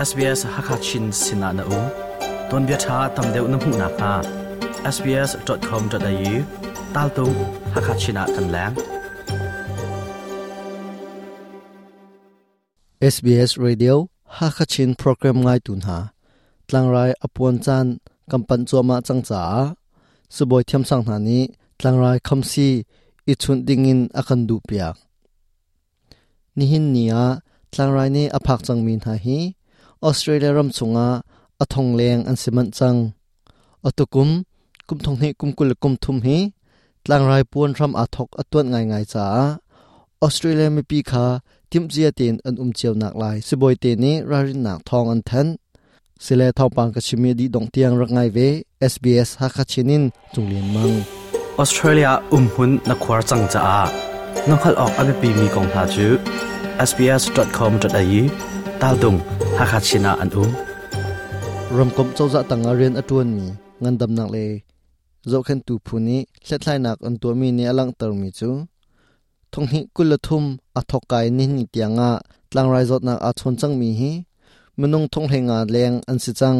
SBS Hakha Chin sinah na um. Tuanbia ṭha tam deuh na hmuh nakhnga sbs.com.au taltung Hakha Chin ah kan leng. SBS Radio Hakha Chin program ngai tu hna tlangrai apuan caan kan panh cuahmah cang caah sibawi thiamsang hna nih tlangrai khamsi i chunh dingin a kan duhpiak. Nihin ni ah tlangrai nih a phak cangmi hna hi Australia ram chungah a thong leng an si manh cang. Atukum kum thong hnih kum 20 kum thum hi tlangrai puan hram aa thok a tuanh ngaingai caah Australia mipi kha timhcia tein an um cio nak lai sibawi te nih ralrinnak thawng an thanh. Sile thawngpang ka chimi dih dong tiang rak ngai ve SBS Hakha Chin in Cunglian Mang. Australia umhmun na khuar cang caah na hngalh awk a biapimi kong hna cu sbs.com.au taltung Hakha Chin ah an um. Ramkomh cozah tangah rian a ṭuanmi ngandamnak le zohkhenhtu phu nih hlathlainak an tuahmi nih a langhtermi cu thonghnih 23 a thawkkai nihni tiangah tlangrai zawtnak aa chawn cangmi hi minung thonghlei leng an si cang.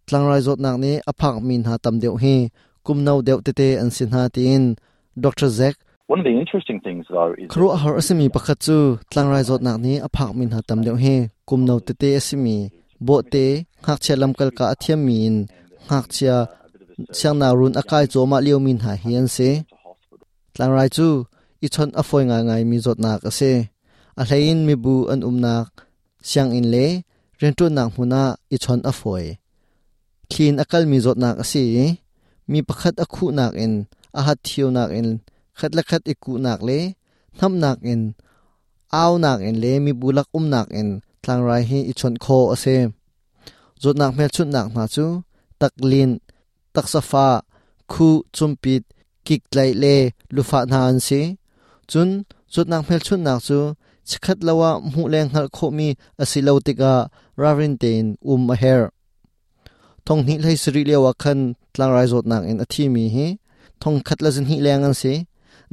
Tlangrai zawtnak nih a phakmi hna tam deuh hi kum no deuh tete an si hna tiin Dr. Zack One of the interesting things though is Khuaruahhar a simi pakhat cu tlangrai zawtnak nih a phakmi hna tam deuh hi kum no tete a simi bawhte ngakchia lamkal ka a thiammi in ngakchia siangnakrun a kai cuahmah liomi hna hi an si. Tlangrai cu i chawnh a fawi ngaingaimi zawtnak a si. A hleiin mibu an umnak sianginn le rianṭuannak hmun ah i chawnh a fawi. Thli in a kalmi zawtnak a si i mi pakhat a khuhnak in a hat thionak in khat le khat i kuhnak le hnamhnak in aunak in le mibu lak umnak in tlangrai hi i chawnh khawh a si. Zawtnak hmelchunhnak hna cu taklinh, taksa fah, khuh, cumpit, kiktlaih le lufah hna an si. Cun zawtnak hmelchunhnak cu chikkhat lo ah hmuh le hngalh khawhmi a si lo tikah ralrin tein um a herh. Thong hnih hlei sarih lio ah khan tlangrai zawtnak in a thimi hi thong khat le zahnih leng an si.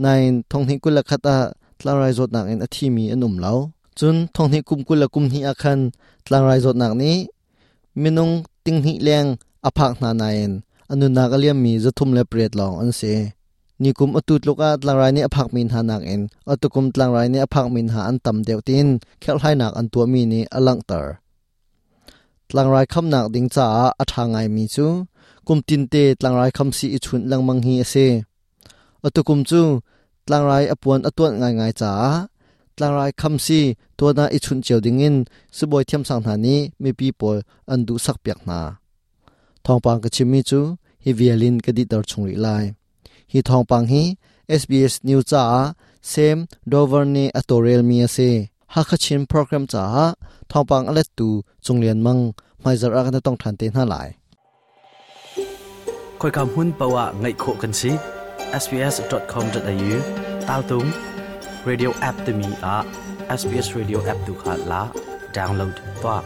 Nain thong hnih 21 ah tlangrai zawtnak in a thimi an um lo. Cun thong hnih kum 20 kum hnih ah khan tlangrai zawtnak nih minung ting hnih leng a phak hna nain a nunnak a liammi 308 lawng an si. Nikum atu tluk ah tlangrai nih a phakmi hna nakin atukum tlangrai nih a phakmi hna an tam deuh tiin kherhhlainak an tuahmi nih a langhter. Tlangrai khamnak ding caah a ṭha ngaimi cu kum tinte tlangrai khamsii i chunh lengmang hi a si. Atukum cu tlangrai a puan a tuanh ngaingai caah tlangrai khamsii tuan ah i chunh cio dingin sibawi thiamsang hna nih mipi pawl an duhsakpiak hna. Thawngpang ka chimmi cu hi vial in ka dihter chung rih lai. Hi thawngpang hi SBS News caah Sam Dover nih a tawlrelmi a si. Hakha Chin program caah thawngpang a lettu Cung Lian Mang hmaizarh ah kan i tong ṭhan te hna lai. Khoika hmun paoh ah ngaih khawh kan si. sbs.com.au taltung radio app timi ah SBS Radio app tu kha la download tuah.